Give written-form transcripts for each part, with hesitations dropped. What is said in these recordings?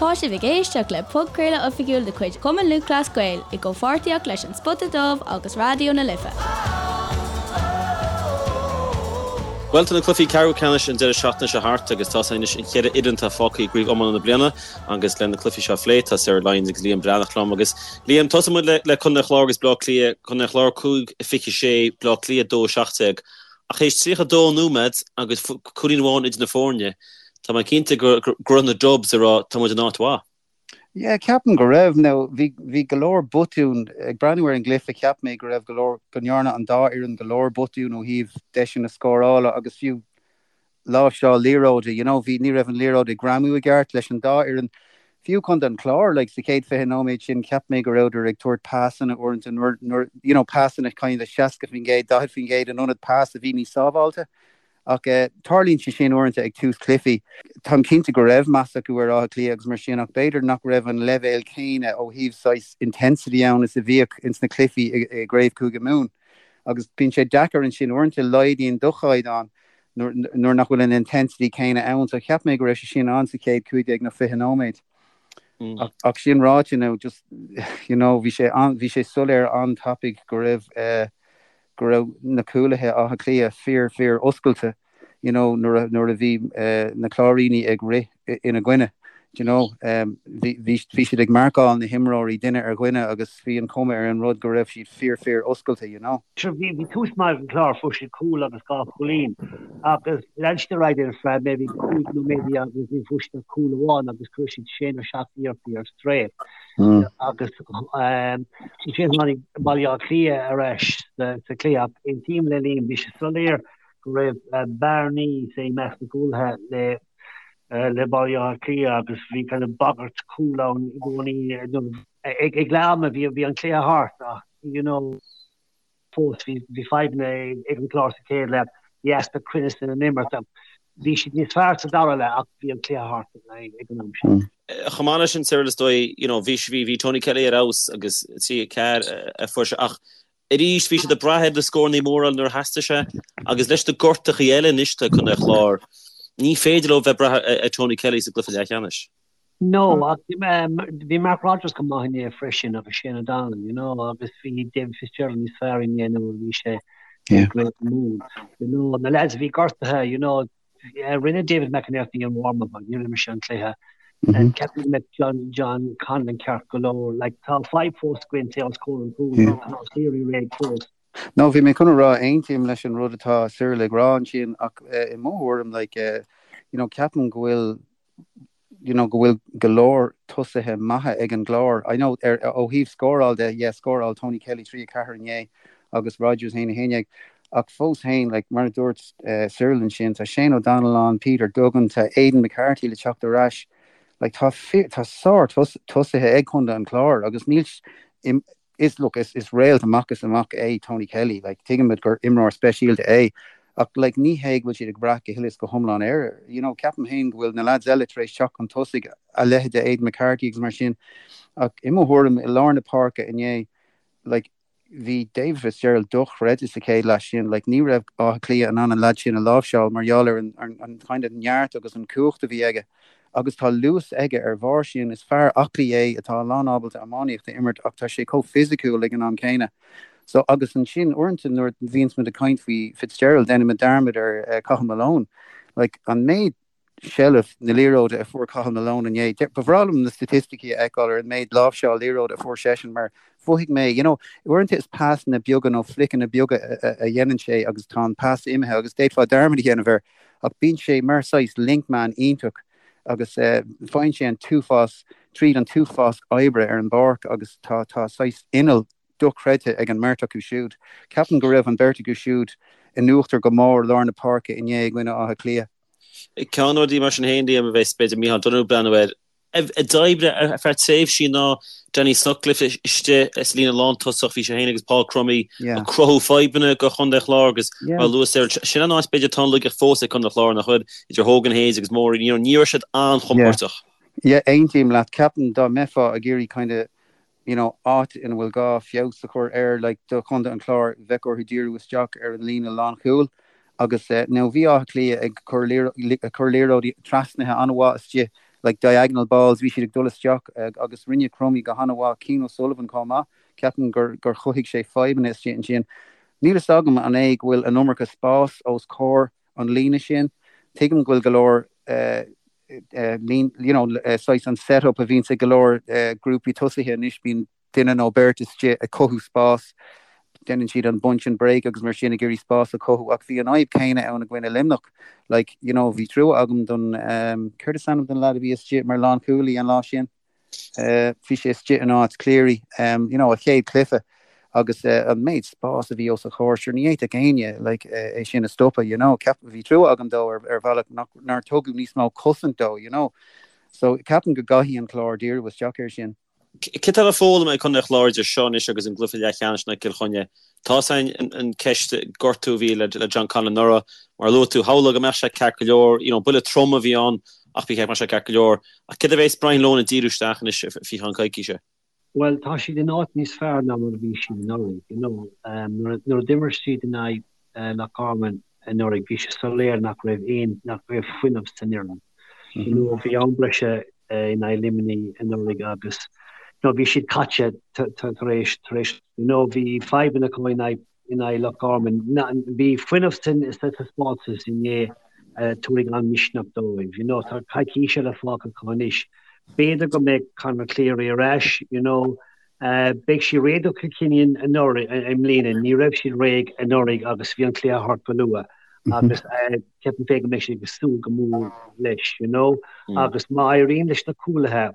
Tá sibh ag éisteacht le podchraoladh oifigiúil de chuid Chumann Lúthchleas Gael i gcomhpháirtíocht leis An Spota Dubh agus Raidió na Life. Bhuel, tá na cluichí ceathrú ceannais an deireadh seachtaine seo thart agus tá anois an cheithre fhoireann atá fágtha i gcraobh iomána na bliana agus le na cluichí seo a phlé tá Cyril Lyons agus Liam Breathnach liom agus Liam, tosóidh muid le le Contae an Chláir agus Bleá Cliath, Contae an Chláir 5 26, Bleá Cliath 2 17. Ach théis 32 nóiméad agus cúilín amháin idir na foirne, tá mé cinnte go raibh na Dubs ag rá tá muid in áit mhaith. Yeah, ceapaim go raibh. Now, bhí, bhí go leor botún, ag breathnú ar an gcluiche, cheap mé go raibh go leor, go ndearna an dá fhoireann go leor botún ó thaobh deiseanna scórála agus fiú láimhseáil liathróide, you know, bhí, ní raibh an liathróid ag greamú i gceart leis an dá fhoireann. Fiú Contae an Chláir, like, sa chéad 20 nóiméad sin, cheap mé go rabhadar ag tabhairt pasanna uaireanta nuair, nuair, you know, pasanna kind of 60%, 40% in ionad pas a bhí níos sábháilte. Ach tarlaíonn sé sin uaireanta ag tús cluichí. Táim cinnte go raibh meas acu ar Áth Cliath agus mar sin ach b'fhéidir nach raibh an leibhéal céanna ó thaobh saghas intensity ann is a bhíodh ins na cluichí i gCraobh Chúige Mumhan. Agus bíonn sé deacair ansin uaireanta, laghdaíonn do chaighdeán nuair nach bhfuil an intensity céanna ann. So cheap mé go raibh sé sin ann sa chéad 15 nó 20 nóiméad. Ach sin ráite now just you know bhí sé bhí sé soiléir an-tapaidh go raibh eh, go raibh na cúlaithe Átha Cliath fíor fíor oscailte you know nuair a nuair a bhí na Cláirínigh ag rith ina gcoinne you know bhí bhí bhí siad ag marcáil na himreoirí duine ar dhuine agus bhí an chuma ar an rud go raibh siad fíor fíor oscailte you know. Sure bhí bhí tús maith ag an Chlár fuair siad cúl agus dhá chúilín agus lean siad ar aghaidh ar feadh maybe 5 nóiméad agus ní fuair siad ach cúl amháin agus chuir siad sé nó seacht iarrachtaí ar strae. Agus ansin tháinig Baile Átha Cliath ar ais sa chluiche ach aontaím le Liam, bhí sé soiléir go raibh bearnaí i measc na gcúlaithe le le Baile Átha Cliath agus bhí kind of bagairt cúl ann i gcónaí. Ag leath ama bhí an cluiche thart ach you know, fós. Bhí fadhbanna ag an Chlár sa chéad leath, bhí easpa cruinnis ina n-imirt. Bhí siad níos fearr sa dara leath ach bhí an cluiche thart ag an am sin. Chomh maith leis sin, Cyril, is dóigh, you know, bhí, bhí Tony Kelly ar fheabhas agus 3 4 a fuair sé ach arís bhí siad ag brath ar na scóranna móra nuair a theastaigh sé agus leis na gortachaí eile anois atá ag Contae an Chláir, ní féidir leo bheith ag brath ar Tony Kelly sa gcluiche leathcheannais. No, ach bhí Mark Rodgers go maith inné freisin agus Shane O'Donnell, you know, agus bhí David Fitzgerald níos fearr inné ná a bhí sé i gCraobh na Mumhan. You know, na lads a bhí gortaithe, you know, rinne David McEnerney an warm-up ach níor imir sé an cluiche. Ceapaim go mbeidh John, John Conlon ceart go leor. Like, tá fadhb fós againn say os comhair an chúil, tá Cleary réidh fós. No, bhí mé chun a rá, aontaím leis an rud atá Cyril ag rá ansin ach i mo thuairim, like, you know, ceapaim go bhfuil you know, go bhfuil go leor tosaithe maithe ag an gClár. I know ar, ó thaobh scóráil de, yeah, scóráil Tony Kelly 3 4 inné agus Rodgers 1 11, ach fós féin, like, mar a dúirt uh, Cyril ansin, tá Shane O'Donnell ann, Peter Duggan, tá Aidan McCarthy le teacht ar ais. Like, tá, tá sár tosaithe ag Contae an Chláir agus níl Is, look, is, is réalt amach is amach é Tony Kelly, like, tuigimid gur imreoir speisialta é, ach, like, ní hé go bhfuil siad ag brath go huile is go hiomlán air, you know, ceapaim féin go bhfuil na lads eile tar éis teacht chun tosaigh, a leithéid de Aidan McCarthy agus mar sin, ach i mo thuairim, i lár na páirce inné, like, bhí David Fitzgerald dochreidte sa chéad leath sin, like, ní raibh Áth Cliath in ann an lad sin a láimhseáil mar gheall ar an, an, an kind of neart agus an cumhacht a bhí aige. agus tá luas aige ar bharr sin. Is fear aclaí é atá lán ábalta iománaíocht a imirt ach tá sé chomh fisiciúil ag an am céanna. So, agus ansin uaireanta nuair a bhíonns muid ag caint faoi Fitzgerald déanaimid dearmad ar Cathal Malone. Like, an méid seilbh na liathróide a fuair Cathal Malone inné, ba bhreá liom na staitisticí a fheiceáil ar an méid láimhseáil liathróide a fuair seisean mar mhothaigh mé, you know, uaireanta is pasanna beaga nó fliceanna beaga a dhéanann sé agus tá an pas imithe agus d'fhéadfá dearmad a dhéanamh air. Ach bíonn sé mar saghas link man iontach agus faigheann sé an t-uafás tríd an t-uafás oibre ar an bpáirc agus tá tá saghas inneall dochreidte ag an mbeirt acu siúd. Ceapaim go raibh an bheirt acu siúd in uachtar go mór lár na páirce inné i gcoinne Átha Cliath. Ceann de na rudaí mar sin féin, Liam, a bheas b'fhéidir Micheál Donoghue ag breathnú air, a d'oibrigh ar feadh tréimhsí ná Danny Sutcliffe istigh sa líne lántosach, bhí sé féin agus Paul Crummey ag cruthú fadhbanna do Chontae an Chláir agus mar a luaigh Cyril, sin an áit b'fhéidir atá an laigeacht fós ag Contae an Chláir nach bhfuil idir Hogan Hayes agus Morey, you know, ní raibh siad an-chompordach. Yeah, aontaím leat. Ceapaim dá mbeifeá ag iarraidh kind of you know, áit ina bhfuil gá feabhas a chur air, like, do Chontae an Chláir, bheadh orthu díriú isteach ar an líne lánchúil agus, now, bhí Áth Cliath ag cur ag cur liathróidí trasnaithe an-mhaith istigh. like diagonal balls, bhí siad ag dul isteach agus rinne Crummey go han-mhaith, Cian O'Sullivan chomh maith, ceapaim gur gur chothaigh sé fadhbanna istigh ansin. Níl fhios agam an é go bhfuil an iomarca spás os comhair an líne sin. Tuigim go bhfuil go leor lín, you know, saghas an set up a bhíonns ag go leor grúpaí tosaithe anois, bíonn duine nó beirt istigh ag cothú spás, déanann siad an bunch and break agus mar sin ag iarraidh spás a chothú ach bhí an fhadhb chéanna ann i gcoinne Luimneach. Like, you know, bhí trua agam don, céard is ainm don leaid a bhí istigh mar lánchúlaí an lá sin? Bhí sé istigh in áit Cleary, you know, a chéad chluiche agus an méid spás a bhí os a chomhair, sure ní fhéadfadh éinne like é sin a stopadh, you know. Ceap, bhí trua agam dó ar ar bhealach nach nár tugadh níos mó cosaint dó, you know. So ceapaim go gcaithfidh an Clár díriú isteach air sin. Céard atá le foghlaim ag Contae an Chláir idir seo anois agus an gcluiche leathcheannais in aghaidh Cill Chainnigh? Tá a fhios againn an ceist gortú a bhí le John Conlon anuraidh. Mar a luaigh tú, shamhlófá go mbeadh sé ceart go leor, you know, buille trom a bhí ann ach ba cheart go mbeadh sé ceart go leor. Ach céard a bheas Brian Lohan ag díriú isteach anois faoi cheann coicíse? Bhuel, tá siad in áit níos fearr ná mar a bhí siad anuraidh, you know. Nuair a d'imir siad in aghaidh Loch Garman anuraidh, bhí sé soiléir nach raibh aon, nach raibh fuinneamh san fhoireann. You know, bhí am breise in aghaidh Luimnigh anuraidh agus you know, bhí siad caite tar éis, tar éis, you know, bhí fadhbanna acu in aghaidh, in aghaidh Loch Garman. Bhí fuinneamh sa taispeántas inné a tabharfaidh an-mhisneach dóibh. You know, tá coicís eile fágtha acu anois. B'fhéidir go mbeidh Conor Cleary ar ais, you know. Beidh siad réidh do Chill Chainnigh anuraidh, i mbliana. Ní raibh siad réidh anuraidh agus bhí an cluiche thart go luath. Agus ceapaim féin go mbeidh siad ag súil go mór leis, you know. Agus má éiríonn leis na cúlaithe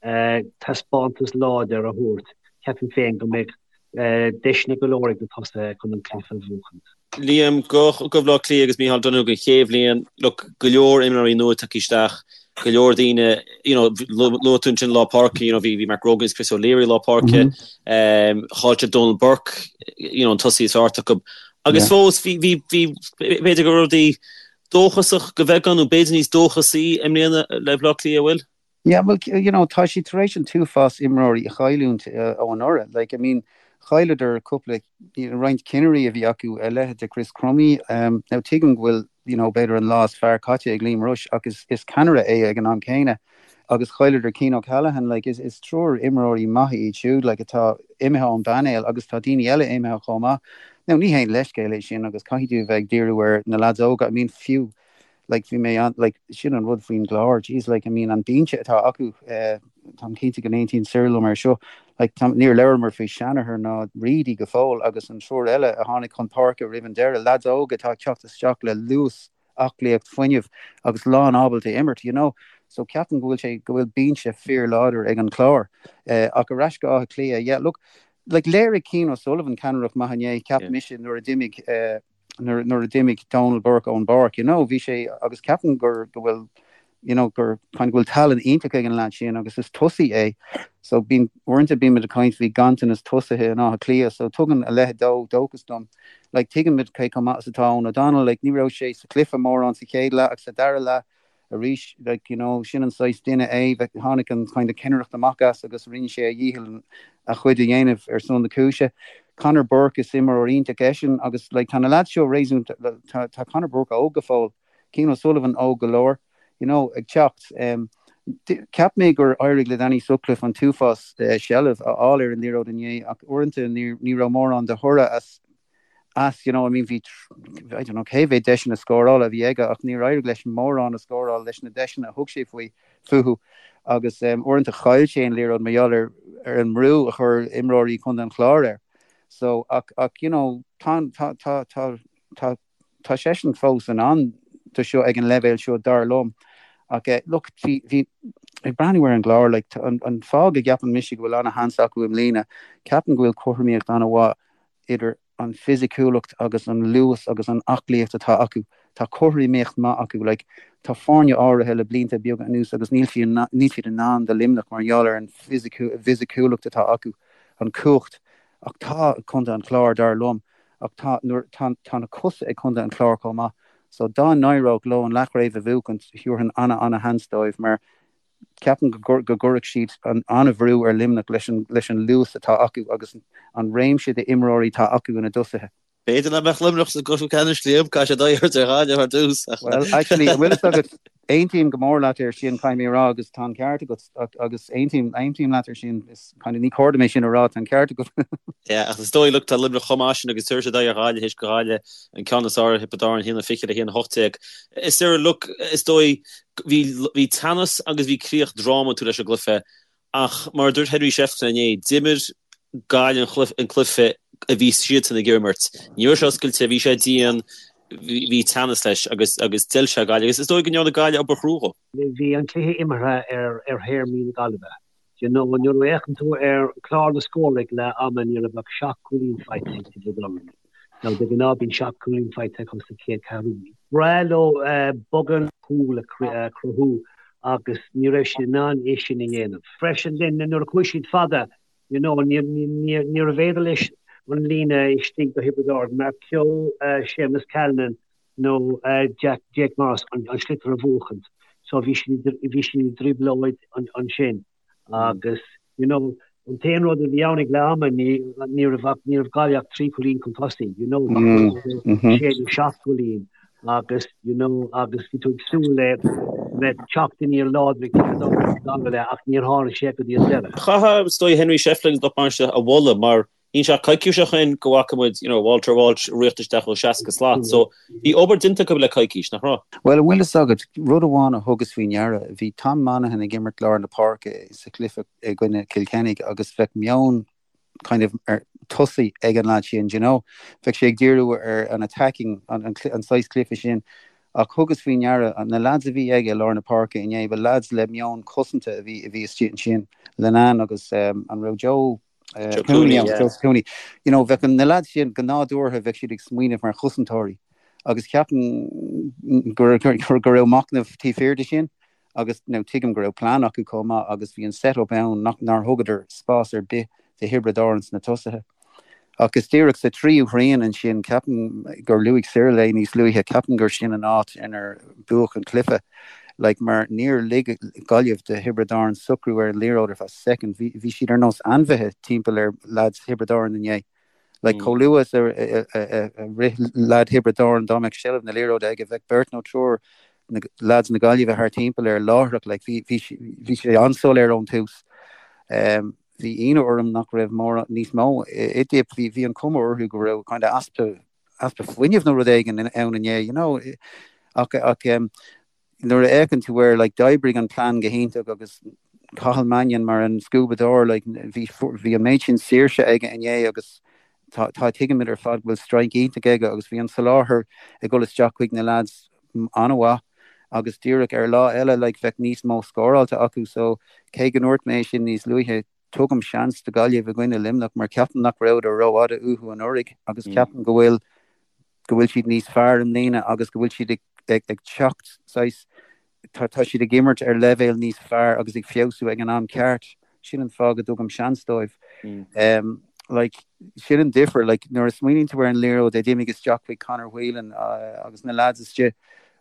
taispeántas láidir a thabhairt, ceapaim féin go mbeidh deiseanna go leor ag na tosaithe chun an cluiche a bhuachaint. Liam, do Bhaile Átha Cliath agus Micheál Donoghue don chéad bhliain, look, go leor imreoirí nua tagtha isteach, go leor daoine, you know, luaigh tú ansin lár páirce, you know, bhí bhí Mark Grogan agus Chris O'Leary lár páirce, chaill siad Donal Burke, you know, an tosaí is fearr acu. Agus fós bhí bhí bhí b'fhéidir go raibh rudaí dóchasach go bheagán nó b'fhéidir níos dóchasaí i mbliana le Baile Átha Cliath, an bhfuil? Yeah, well, you know, tá siad tar éis an t-uafás imreoirí a chailliúint ó anuraidh. Like, I mean, chailleadar cúpla, you know, roinnt cinnirí a bhí acu, a leithéid de Chris Crummey. Um, now, tuigim go bhfuil, you know, b'fhéidir an lá is fearr caite ag Liam Rushe, ach is, is ceannaire é ag an am céanna. Agus chailleadar Cian O'Callaghan, like, is, is triúr imreoirí maithe iad siúd, like, atá imithe ón bpainéal agus tá daoine eile imithe chomh maith. Now, ní haon leithscéal é sin agus caithfidh tú a bheith ag díriú ar na lads óga. I mean, fiú, like bhí mé an like sin an rud faoin gClár jeez like I mean an binse atá acu eh táim cinnte go n-aontaíonn Cyril liom ar seo like tá níor labhramar faoi Shanahan ná Reidy go fóill agus an triúr eile a tháinig chun páirce roimh an deireadh lads óga atá ag teacht isteach le luas aclaíocht fuinneamh agus lán ábalta imirt you know so ceapaim go bhfuil sé go bhfuil binse fíor láidir ag an Chlár eh ach ar ais go Áth Cliath yeah look like léirigh Cian O'Sullivan ceannaireacht maith inné cheap mise nuair a d'imigh eh nuair a d'imigh Donal Burke ón bpáirc, you know, bhí sé, agus ceapaim gur, go bhfuil, you know, gur, kind of go bhfuil tallann iontach ag an leaid sin agus is tosaí é. So bíonn, uaireanta bímid ag caint faoi ganntanas tosaithe in Áth Cliath, so tugann a leithéid dó dóchas dom. Like, tuigimid cé chomh maith is atá Eoghan O'Donnell, like, ní raibh sé sa chluiche mórán sa chéad leath ach sa dara leath, arís, like, you know, sin an saghas duine é, tháinig an kind of cinnireacht amach as agus rinne sé a dhícheall a chuid a dhéanamh ar son na cúise. Conor Burke, is imreoir iontach eisean agus like tá na lads seo réasúnta, tá, tá Conor Burke óg go fóill, Cian O'Sullivan óg go leor, you know, ag teacht. Um, cheap mé gur éirigh le Danny Sutcliffe an t-uafás uh, seilbh a fháil ar an liathróid inné ach uaireanta ní, ní raibh mórán de thoradh as as, you know, I mean bhí, I don't know cé mhéad deiseanna scórála a bhí aige ach níor éirigh leis mórán a scóráil leis na deiseanna a thug sé faoi, fúthu agus um, uaireanta chaill sé an liathróid mar gheall ar, ar an mbrú a chuir imreoirí Chontae an Chláir air. So, ach, ach you know, tá, tá, tá, tá, tá, tá seisean fós in ann do seo ag an leibhéal seo dar liom. Ach eh, look, bhí, bhí, ag breathnú ar an gClár, like, an, an fáth go gceapann mise go bhfuil ana-sheans acu i mbliana, ceapaim go bhfuil cothromaíocht ana-mhaith idir an fisiciúlacht agus an luas agus an aclaíocht atá acu. Tá cothromaíocht maith acu. Like, tá foirne áirithe le blianta beaga anuas agus níl siad níl siad in ann do Luimneach mar gheall ar an bhfisiciúlacht atá acu, an cumhacht. Ach tá Contae an Chláir, dar liom, ach tá nuair tá tá na cosa ag Contae an Chláir chomh maith. So dá n-éireodh leo an leathchraobh a bhuachaint, thabharfainn ana-ana-sheans dóibh mar Ceapaim go gcuirfeadh siad an-bhrú ar Luimneach leis an luas atá acu agus an réimse d'imreoirí atá acu ina dtosaithe. B'fhéidir nach mbeadh Luimneach sa gcluiche ceannais, Liam, caithfidh siad aghaidh a thabhairt ar Ghaillimh ar dtús. Well, actually, an bhfuil fhios agat, aontaím go mór leat air sin, caithfidh mé a rá, agus tá an ceart agat, agus aontaím, aontaím leat air sin, is kind of ní cóir dom é sin a rá, tá an ceart agat. Yeah, ach is dóigh, look, tá Luimneach chomh maith sin agus tabharfaidh siad aghaidh ar Ghaillimh théis do Ghaillimh an ceann is fearr ar Thiobraid Árann, 1-20 le 1-18. Is ar, look, is dóigh, bhí, bhí teannas agus bhí críoch drámatúil leis an gcluiche Ach mar a dúirt Henry Shefflin inné, d'imir Gaillimh an cluiche a bhí siadsan ag imirt. Ní raibh sé oscailte, bhí sé dian, bhí teannas leis agus agus d'fheil sé Gaillimh agus is dóigh go ndearna Gaillimh obair chrua dhó. Bhí an cluiche imeartha ar ar théarmaí na Gaillimhe. You know, nuair a fhéachann tú ar chlár na scór ag leath ama ní raibh ach 7 cúilín faighte ag Tiobraid Árann. Now de ghnáth bíonn 7 cúilín faighte acu sa chéad ceathrú. Bhreá leo beagán cúl a chruthú agus ní raibh siad in ann é sin a dhéanamh. Freisin then nuair a chuaigh siad fada you know níorbh fhéidir leis an líne istigh do Thiobraid Árann, Mark Kehoe, Séamus Callanan nó Jack, Jake Morris an sliotar a bhuachaint. So bhí siad bhí siad i dtrioblóid ansin. Agus, you know, an t-aon rud a bhí ann ag leath ama, ní, ní raibh ach, ní raibh Gaillimh ach 3 chúilín chun tosaigh, you know, ba chóir sé nó 7 gcúilín agus, you know, agus bhí tú ag súil le bheith teacht aniar láidir ag Tiobraid Árann sa dara leath ach níor tháinig sé go dtí an deireadh. Chaithfeá, is dóigh, Henry Shefflin lucht bainistithe a mholadh mar Níl sé ach coicís ó shin go bhfaca muid, you know, Walter Walsh ag rith isteach ó 60 slat. So, bhí obair déanta acu le coicís, nach raibh? Bhuel, an bhfuil fhios agat, rud amháin a thugas faoi ndeara, bhí Tom Monaghan ag imirt lár na páirce sa chluiche i gcoinne Chill Chainnigh agus bheadh meon kind of ar tosaí ag an lad sin, do you know. Bheadh sé ag díriú ar an attacking, an, an, an saghas cluiche sin. Ach thugas faoi ndeara, na lads a bhí aige i lár na páirce inné, ba lads le meon cosanta a bhí, a bhí istigh ansin, Linnane agus um, an raibh Joe Joe Cooney, yeah. Joe Cooney. You know, bheadh na lads sin go nádúrtha bheadh siad ag smaoineamh mar chosantóirí agus ceapaim go go raibh machnamh taobh thiar de sin agus now tuigim go raibh plean acu chomh maith agus bhí an set-up ann nach nár thugadar spás ar bith do Thiobraid Árann sna tosaithe. Ach is díreach sa tríú thrian ansin, ceapaim gur luaigh Cyril é níos luaithe, ceapaim gur sin an áit inar buadh an cluiche. Like, mar níor lig Gaillimh do Thiobraid Árann socrú ar an liathróid ar feadh soicind. Bhí, bhí siad ar nós ainmhithe timpeall ar leaids Thiobraid Árann inné. Like, chomh luath is a, a, a, a rith leaid Thiobraid Árann, dá mbeadh seilbh na liathróide aige, bheadh beirt nó triúr na leaids na Gaillimhe thart timpeall air láithreach. Like, bhí, bhí, bhí sé an-soiléir ón tús. Um, bhí ionadh orm nach raibh mórán níos mó i dTip. Bhí, bhí an cuma orthu go raibh kind of easpa, easpa fuinnimh nó rud éigin ann inné, you know. Ach, ach um, nuair a fhéachann tú air, like, d'oibrigh an plean go hiontach agus Cathal Mannion mar an scuabadóir, like, bhí, bhí an méid sin saoirse aige inné agus tá, tá, tuigimid ar fad go bhfuil strike iontach aige agus bhí an soláthar ag dul isteach chuig na lads an-mhaith agus díreach ar lá eile like bheadh níos mó scóráilte acu so cé go ndúirt mé é sin níos luaithe tugaim seans do Ghaillimh i gcoinne Luimneach mar ceapaim nach rabhadar rófhada uathu anuraidh agus ceapaim go bhfuil go bhfuil siad níos fearr i mbliana agus go bhfuil siad ag ag ag teacht saghas tá tá siad ag imirt ar leibhéal níos fearr agus ag feabhsú ag an am ceart. Sin an fáth go dtugaim seans dóibh. Um, like, sin an difear, like, nuair a smaoiníonn tú ar an liathróid a d'imigh isteach chuig Conor Whelan uh, agus na lads istigh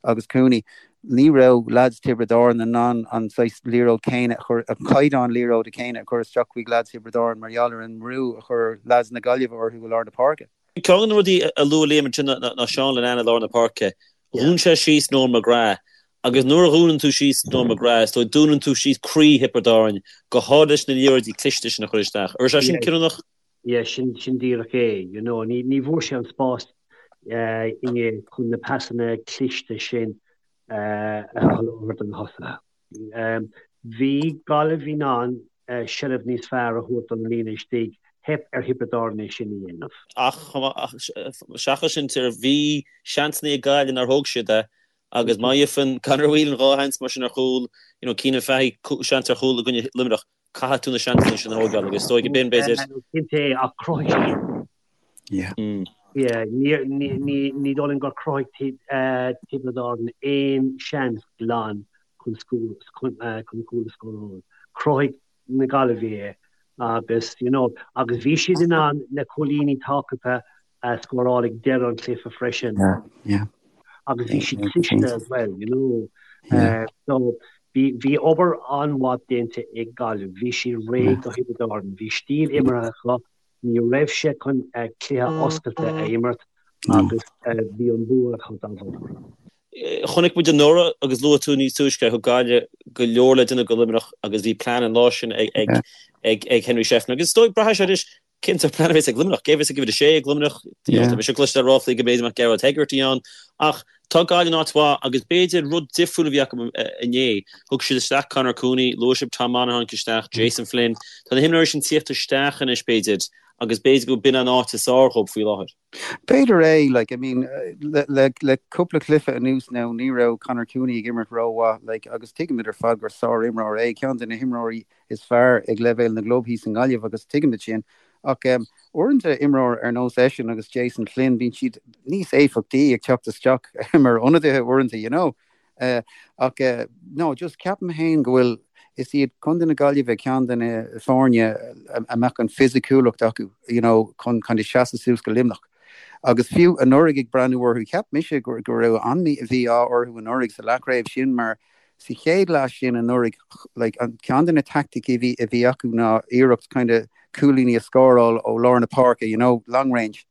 agus Cooney, ní raibh lads Tiobraid Árann in ann an saghas liathróid céanna a chur, an caighdeán liathróide céanna a chur isteach chuig lads Thiobraid Árann mar gheall ar an mbrú a chuir lads na Gaillimhe orthu i lár na páirce. Ceann de na rudaí a luaigh Liam ansin ná Seán Linnane i lár na páirce. Dhún sé síos Noel McGrath agus nuair a dhúnann tú síos Noel McGrath, is dóigh, dúnann tú síos croí Thiobraid Árann, go háirithe leis na liathróidí cliste sin a chur isteach. An raibh sé sin cinniúnach? Yeah, sin, sin díreach é, you know. Ní, ní bhfuair sé an spás inné chun na pasanna cliste sin a sholáthar do na tosaithe. Bhí Gaillimh in ann seilbh níos fearr a thabhairt don líne istigh, theip ar Thiobraid Árann é sin a dhéanamh. Ach seachas sin, bhí seansanna ag Gaillimh nár thóg siad é agus má fhaigheann Conor Whelan 2 sheans mar sin ar chúl, you know, Cianan Fahy seans ar chúl i gcoinne Luimneach, caithfidh tú na seansanna sin a thógáil agus is dóigh b'in, b'fhéidir. Cinnte, ach chruthaigh siad. Yeah. Yeah, ní ní dóigh liom gur chruthaigh Tiobraid Árann aon seans glan chun chun chun cúl a scóráil. Chruthaigh na Gaillimhigh é agus you know agus bhí siad in ann na cúilíní tábhachtacha a scóráil ag deireadh an chluiche freisin. Yeah, yeah. Agus bhí siad cliste as well, you know. Yeah. So bhí bhí obair an-mhaith déanta ag Gaillimh. Bhí siad réidh do Thiobraid Árann. Bhí stíl imeartha acu Ní raibh sé chun cluiche oscailte a imirt. Agus bhí an bua acu dá bharr. Chonaic muid anuraidh agus luaigh tú níos túisce thug Gaillimh go leor le déanamh do Luimneach agus bhí plean an lá sin ag Henry Shefflin. Agus is dóigh, braithfidh sé anois cén sórt plean a bheas ag Luimneach. Cé a bheas ag uimhir a sé ag Luimneach? Tá mise ag cloisteáil ráflaí go mb'fhéidir go mbeadh Gearóid Hegarty ann. Ach tá Gaillimh in áit mhaith agus b'fhéidir rud difriúil a bhí acu inné. Thug siad isteach Conor Cooney, luaigh sibh Tom Monaghan isteach, Jason Flynn. Tá na himreoirí sin tíocht isteach anois b'fhéidir agus b'fhéidir go b'in an áit is fearr dhóibh faoi láthair. B'fhéidir é, like, I mean, le, le, le cúpla cluiche anuas now, ní raibh Conor Cooney ag imirt rómhaith, like, agus tuigimid ar fad gur sár-imreoir é, ceann de na himreoirí is fearr ag leibhéal na gclub thíos i nGaillimh agus tuigimid sin. Ach um, uaireanta imreoir ar nós eisean agus Jason Flynn, bíonn siad níos éifeachtaí ag teacht isteach mar ionadaithe uaireanta, you know. Ach no, just ceapaim féin go bhfuil, is iad Contae na Gaillimhe ceann de na foirne a mbeadh an fisiciúlacht acu, you know, chun kind of seasamh suas go Luimneach. Agus fiú anuraidh ag breathnú orthu, cheap mise go go raibh an-mhí-ádh orthu anuraidh sa leathchraobh sin mar sa chéad leath sin anuraidh, like, an ceann de na taicticí a bhí a bhí acu ná iarracht kind of cúilíní a scóráil ó lár na páirce, you know, long range.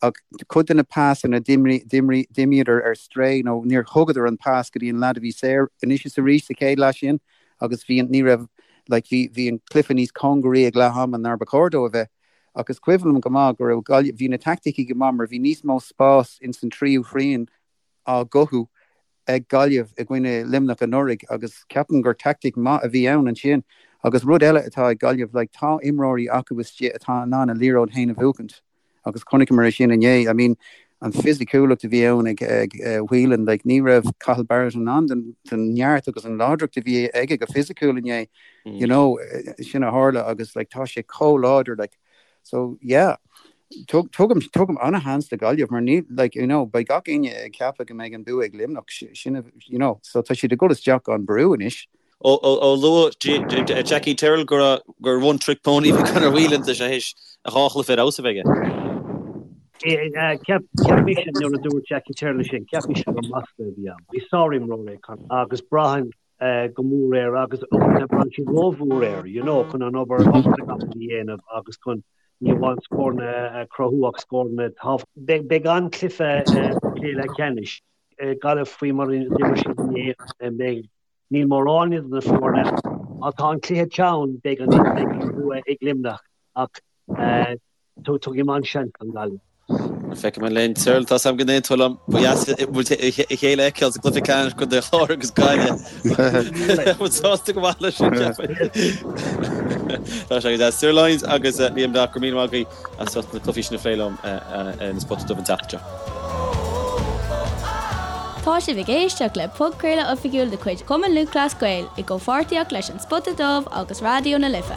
Ach cuid de na pasanna, d'imíodar ar strae nó níor thugadar an pas go dtí an leaid a bhí saor anois is arís sa chéad leath sin agus bhí an, ní raibh, like, bhí, bhí an cluiche níos cóngaraí ag leath ama ná ba chóir dó a bheith. Ach is cuimhin liom go maith go raibh Gaillimh, bhí na taicticí go maith mar bhí níos mó spás ins an tríú thrian á gcothú ag Gaillimh i gcoinne Luimneach anuraidh agus ceapaim gur taictic maith a bhí ann ansin. Agus rud eile atá ag Gaillimh, like, tá imreoirí acu istigh atá in ann a liathróid féin a bhuachaint agus chonaiceamar é sin inné. I mean, an fisiciúlacht a bhí ann ag, ag Whelan, like, ní raibh Cathal Barrett in ann den, den neart agus an láidreacht a bhí aige go fisiciúil inné, you know, sin a tharla agus, like, tá sé chomh láidir, like, So yeah, tugaim tugaim ana-sheans do Ghaillimh mar ní like you know beidh gach éinne ag ceapadh go mbeidh an bua ag Luimneach sin you know so tá siad ag dul isteach gan brú anois. Ó luaigh Jackie Tyrrell gur gur one trick pony a bhí Conor Whelan tá sé théis a dhá chluiche ar fheabhas a bheith aige. Cheap cheap mise nuair a dúirt Jackie Tyrrell sin, cheap mise gur masla a bhí ann. Bhí sárimreoir é Conor agus braitheann go mór air agus uaireanta braitheann siad rómhór air, you know, chun an obair obair na gcapall a dhéanamh agus chun ní amháin scóranna a chruthú ach scóranna tábhachtacha. Beidh an-chluiche cluiche leathcheannais. Gaillimh faoi mar a d'imir siad inné, beidh, níl mórán idir na foirne. Má tá an cluiche teann, beidh an beidh an bua ag Luimneach ach Tugaim an-seans don Ghaillimh. Feicfidh muid linn. Cyril, tá 's agam go n-aontóidh tú liom. Ba dheas muid a chéile a fheiceáil sa gcluiche ceannais Contae an Chláir agus Gaillimh. Bheadh muid sásta go maith leis sin, cheapfainn. Tá sé go deas. Cyril Lyons agus Liam Breathnach, go raibh míle maith agaibh as ucht na cluichí sin a phlé liom ar an Spota Dubh an tseachtain seo. Tá sibh ag éisteacht le podchraoladh oifigiúil de chuid Chumann Lúthchleas Gael i gcomhpháirtíocht leis An Spota Dubh agus Raidió na Life.